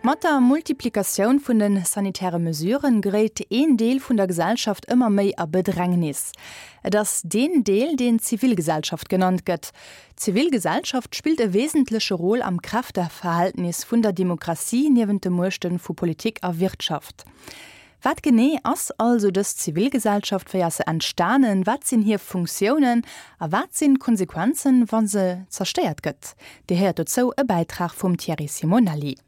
Mat der Multiplikatioun vun de sanitäre Mesuren geréit een Deel vun der Gesellschaft ëmmer méi a Bedrängnis. Et ass deen Deel, deen Zivilgesellschaft genannt gëtt. D'Zivilgesellschaft spillt e wesentleche Rôle am Kräfteverhältnis vun der Demokratie niewent de Muechte vu Politik a Wirtschaft. Wat genee ass also dës Zivilgesellschaft, wéi ass se entstanen, wat sinn hir Funktiounen a wat sinn d'Konsequenzen, wa se zerstéiert gëtt? Dir héiert dozou e Bäitrag vum Thierry Simonelli.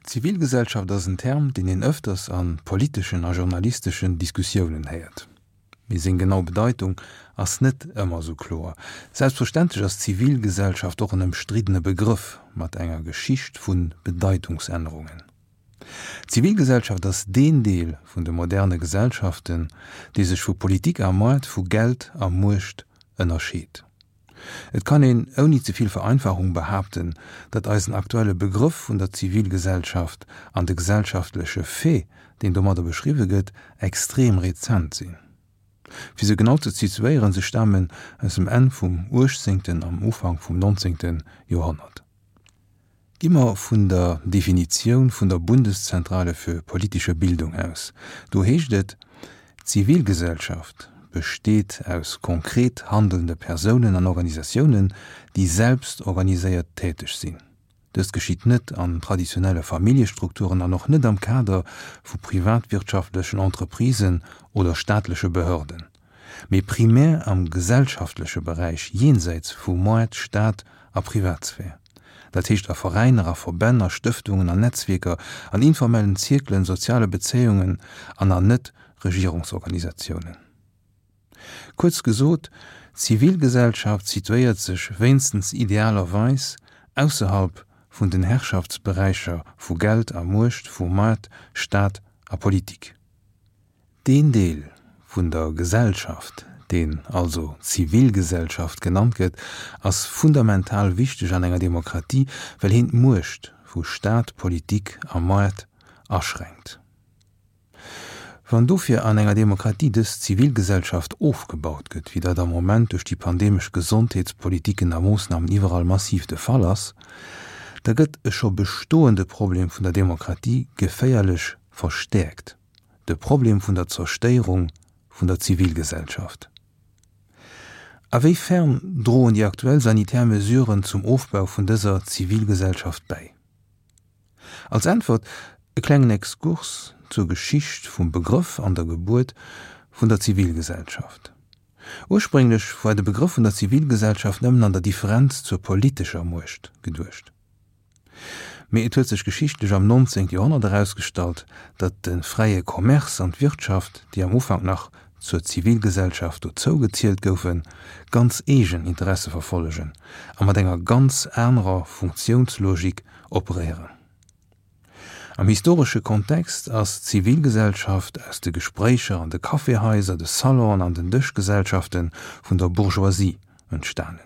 Zivilgesellschaft ass en Term, deen een ëfters a politeschen a journalisteschen Diskussiounen héiert. Mee seng genau Bedeitung ass net ëmmer esou kloer. Selbstverständlech ass Zivilgesellschaft och en ëmstriddene Begrëff mat enger Geschicht vu Bedeitungsännerungen. D'Zivilgesellschaft ass deen Deel vun de moderne Gesellschaften, dee sech vu Politik a Moart, vu Geld a Muecht ënnerscheet. Et kann een ouni ze vill Vereinfachung behaapten, datt eisen aktuelle Begrëff vun der Zivilgesellschaft an de gesellschaftleche Fait, deen domadder beschriwwe gëtt, extrem rezent sinn. Fir se genau ze situéieren, se stamen aus dem Enn vum uechtzéngten am Ufank vum nonzéngte Joerhonnert. Gi mer vun der Definitioun vun der Bundeszentrale für politische Bildung aus. Do heescht et, D'Zivilgesellschaft besteet aus konkret handelnde Persounen an Organisatiounen, déi selbst organiséiert täteg sinn. Dëst geschitt net an traditionelle Familljestrukturen an och net am Kader vu privatwirtschaftlechen Entreprisen oder staatleche Behörden, mee primär am gesellschaftleche Beräich jensäits vu Moart, Staat a Privatsphär. Dat heescht a Veräiner, a Verbänn, a Stëftungen, an Netzwierker, an informellen Zierkelen, soziale Bezéiungen an an Net-Regierungsorganisatiounen. Kuerz gesot, d'Zivilgesellschaft situéiert sech wéinstens idealerweis ausserhalb vun den Herrschaftsberäicher vu Geld a Muecht, vu Moart, Staat a Politik. Deen Deel vun der Gesellschaft, deen also Zivilgesellschaft genannt gëtt, ass fundamental wichteg an enger Demokratie, well heen d'Muecht vu Staat, Politik a Moart aschränkt. Wann dofir an enger Demokratie dës Zivilgesellschaft ofgebaut gëtt, wéi dat am Moment duerch déi pandemesch Gesondheetspolitiken a Moossnamen iwwerall massiv de Fall ass, da gëtt e scho bestoende Problem vun der Demokratie geféierlech verstäerkt. De Problem vun der Zerstéierung vun der Zivilgesellschaft. A wéi fern droen déi aktuell sanitär Mesuren zum Ofbau vun dëser Zivilgesellschaft bäi? Als Äntwert e klengen Exkurs zur Geschicht vum Begrëff an der Gebuert vun der Zivilgesellschaft. Ursprénglech war de Begrëff vun der Zivilgesellschaft nëmmen an der Differenz zur politescher Muecht geduecht. Mee et huet sech geschichtlech am 19. Joerhonnert erausgestallt, datt de fräie Commerce an d'Wirtschaft, déi am Ufank nach zur Zivilgesellschaft dozou gezielt goufen, ganz eegen Interesse verfollegen a mat enger ganz anerer Funktiounslogik operéieren. Am historesche Kontext ass d'Zivilgesellschaft aus de Gespréicher an de Caféhaiser, de Salonen an den Dëschgesellschafte vun der Bourgeoisie entstanen.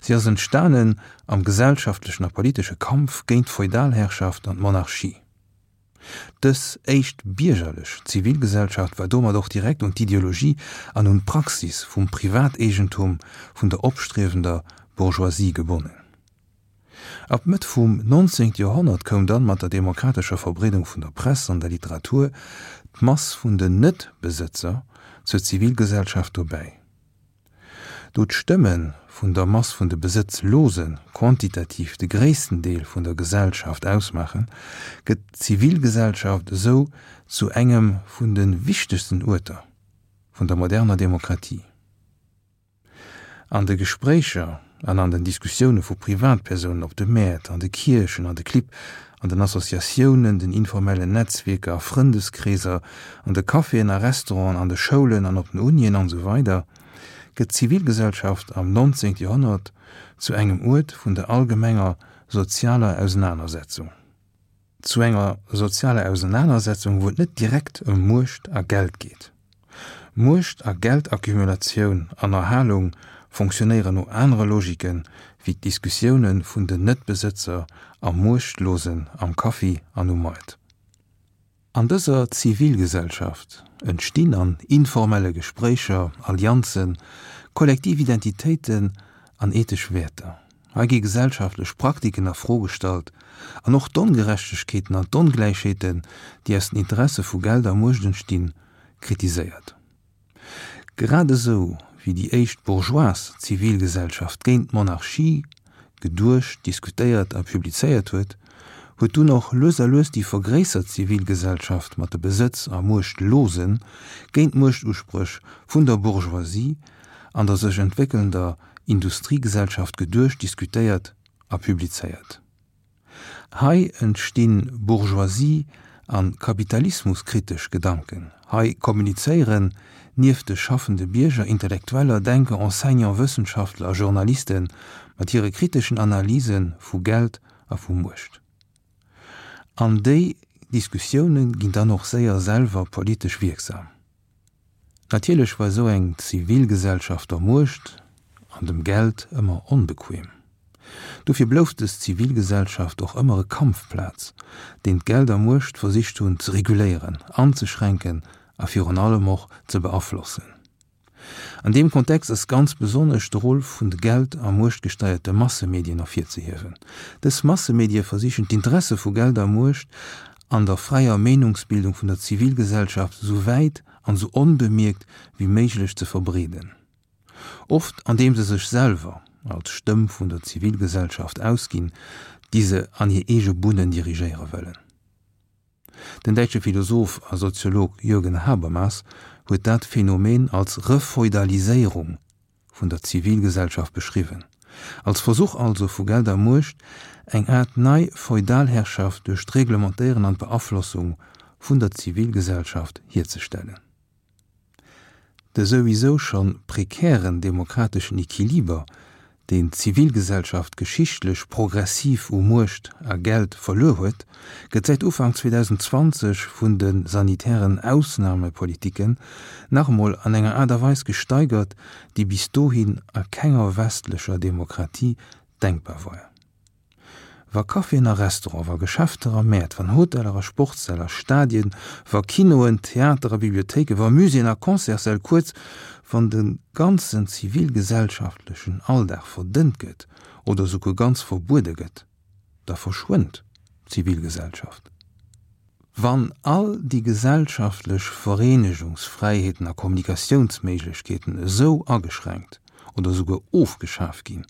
Si ass entstanen am gesellschaftlechen a politesche Kampf géint d'Feudalherrschaft an d'Monarchie. Dës éischt biergerlech Zivilgesellschaft war domat och direkt un d'Ideologie an un d'Praxis vum Privateegentum vun der opstriewender Bourgeoisie gebonnen. Ab Mëtt vum 19. Joerhonnert koum dann mat der demokratescher Verbreedung vun der Press an der Literatur d'Mass vun den Net-Besëtzer zur Zivilgesellschaft dobäi. Do d'Stëmme vun der Mass vun de Besëtzlose quantitativ de gréissten Deel vun der Gesellschaft ausmaachen, gëtt d'Zivilgesellschaft esou zu engem vun de wichtegsten Uerter vun der moderner Demokratie. An de Gespréicher an an den Diskussioune vu Privatpersounen op de Mäert, an de Kierchen, an de Clibb, an den Associatiounen, den informellen Netzwierker a Frëndeskreeser, an de Caféen a Restauranten, an de Schoulen an op den Unien an esou weider gëtt d'Zivilgesellschaft am 19. Joerhonnert zu engem Uert vun der allgemenger sozialer Ausenanersetzung. Zu enger sozialer Ausenanersetzung, wou et net direkt ëm Muecht a Geld geet. Muecht a Geldaccumulatioun an Erhalung fonctionnéieren no anere Logiken wéi d'Diskussioune vun den Net-Besëtzer a Muechtlosen am Kaffi an um Moart. An dëser Zivilgesellschaft entstinn an informelle Gespréicher Allianzen, kollektiv Identitéiten an ethesch Wäerter. Hei gi gesellschaftlech Praktiken a Fro gestallt an och d'Ongerechtegkeeten an d'Ongläichheeten, déi aus den Interesse vu Geld a Muecht entstinn, kritiséiert. Grad esou wéi déi éischt bourgeoise Zivilgesellschaft géint d'Monarchie geduecht, diskutéiert a publizéiert huet, huet dunn och lues a lues déi vergréissert Zivilgesellschaft mat de Besëtz a Muechtlosen géint d'Muechtuspréch vun der Bourgeoisie an der sech entwéckelnder Industriegesellschaft geduecht, diskutéiert a publizéiert. Hei entstinn Bourgeoisie a Kapitalismuskritesch Gedanken. Hei kommunizéieren nieft de schaffende Bierger Intellektueller, Denker, Enseignant, Wëssenschaftler a Journaliste mat hire kriteschen Analyse vu Geld a vu Muecht. An déi Diskussioune ginn dann och séier selwer politesch wierksam. Natierlech war esou eng Zivilgesellschaft der Muecht an dem Geld ëmmer onbequem. Dofir blouf dës Zivilgesellschaft och ëmmer e Kampfplaz, deen d'Geld a Muecht versicht hunn ze reguléieren, anzeschränken a virun allem och ze beaflossen. An deem Kontext ass ganz besonnesch de Rôle vun de Geld a muechtgesteierte Massemedien ervirzehiewen. Dës Massemedie versichen d'Interesse vu Geld a Muecht an der fräier Meenungsbildung vun der Zivilgesellschaft esou wäit an esou onbemierkt wéi méiglech ze verbreeden. Oft andeem se sech selwer als Stëmm vun der Zivilgesellschaft ausginn, déi se an hir eege Bunnen dirigéiere wëllen. Den däitsche Philosoph a Soziolog Jürgen Habermas huet dat Phänomen als Refeudaliséierung vun der Zivilgesellschaft beschriwwen, als Versuch also vu Geld a Muecht, eng Aart nei Feudalherrschaft duerch d'Reglementéieren an d'Beaflossung vun der Zivilgesellschaft hierzestellen. De souwisou scho prekären demokrateschen Equiliber, deen d'Zivilgesellschaft geschichtlech progressiv u Muecht a Geld verluer huet, gëtt säit Ufank 2020 vun de sanitären Ausnamepolitiken nach emol an enger Aart a Weis gesteigert, déi bis dohin a kenger westlecher Demokratie denkbar war. Wa Caféen a Restaurante, wa Geschäfter a Mäert, wann Hoteller a Sportssäll a Stadien, wa Kinoen, Theater a Bibliothéiken, wa Muséeën a Concertssäll, kuerz, wann de ganzen zivilgesellschaftlechen Alldag verdënnt gëtt oder esouguer ganz verbuede gëtt, da verschwënnt d'Zivilgesellschaft. Wann all déi gesellschaftlech Vereenegungsfräiheeten a Kommunikatiounsméiglechkeeten esou ageschränkt oder esouguer ofgeschaf ginn,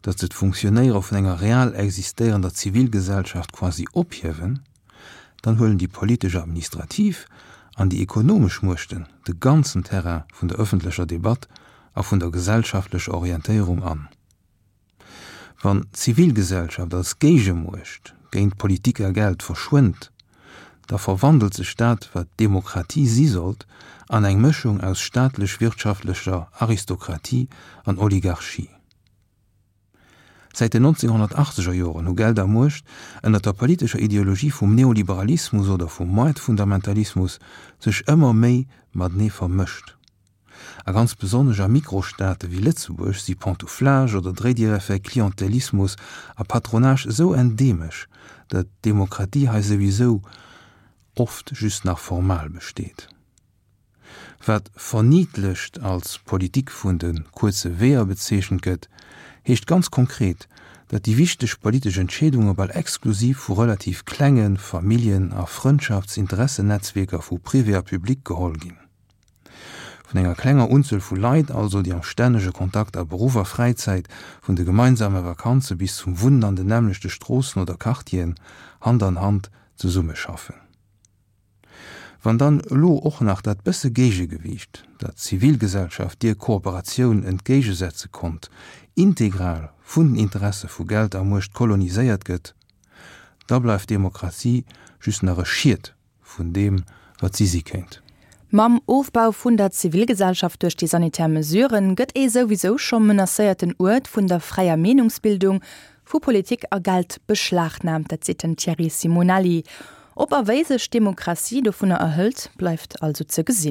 datt se d'Funktionéiere vun enger real existéierender Zivilgesellschaft quasi ophiewen, dann huelen déi politesch a administrativ an déi ekonomesch Muechten de ganzen Terrain vun der ëffentlecher Debatt a vun der gesellschaftlecher Orientéierung an. Wann d'Zivilgesellschaft als Géigemuecht géint Politik a Geld verschwënnt, da verwandelt sech dat, wat Demokratie si sollt, an eng Mëschung aus staatlech-wirtschaftlecher Aristokratie an Oligarchie. Säit den 1980er Joren hu Geld a Muecht ënner der politescher Ideologie vum Neoliberalismus oder vum Moartfundamentalismus sech ëmmer méi matenee vermëscht. A ganz besonnesch a Mikrostaate wéi Lëtzebuerg si Pantouflage oder Dréidiereffekt, Klientelismus a Patronage esou endeemesch, datt d'Demokratie hei souwisou oft just nach formal besteet. Wat verniddlecht als Politik vun de kuerze Weeër bezeechent gëtt, heescht ganz konkret, datt déi wichteg politesch Entscheedunge bal exklusiv vu relativ klenge Familljen a Frëndschaftsinteressenetzwierker vu Privé a Public geholl ginn. Vun enger klenger Unzuel vu Leit also, déi am stännege Kontakt a Beruff a Fräizäit, vun de gemeinsame Vakanze bis zum Wunnen an den nämmlechte Stroossen oder Quartieren, Hand an Hand zesummeschaffen. Wann dann elo och nach dat bësse Géigegewiicht, dat d'Zivilgesellschaft deer Kooperatioun entgéigesetze konnt, integral vun den Interesse vu Geld a Muecht koloniséiert gëtt, da bleift Demokratie just nach e Schiet vun deem, wat si si kéint. Mam Ofbau vun der Zivilgesellschaft duerch déi sanitär Mesuren gëtt ee souwisou scho menacéierten Uert vun der fräier Meenungsbildung, vu Politik a Geld beschlagnaamt. Dat seet den Thierry Simonelli. Ob a wéi sech d'Demokratie dovunner erhëlt, bleift also ze gesinn.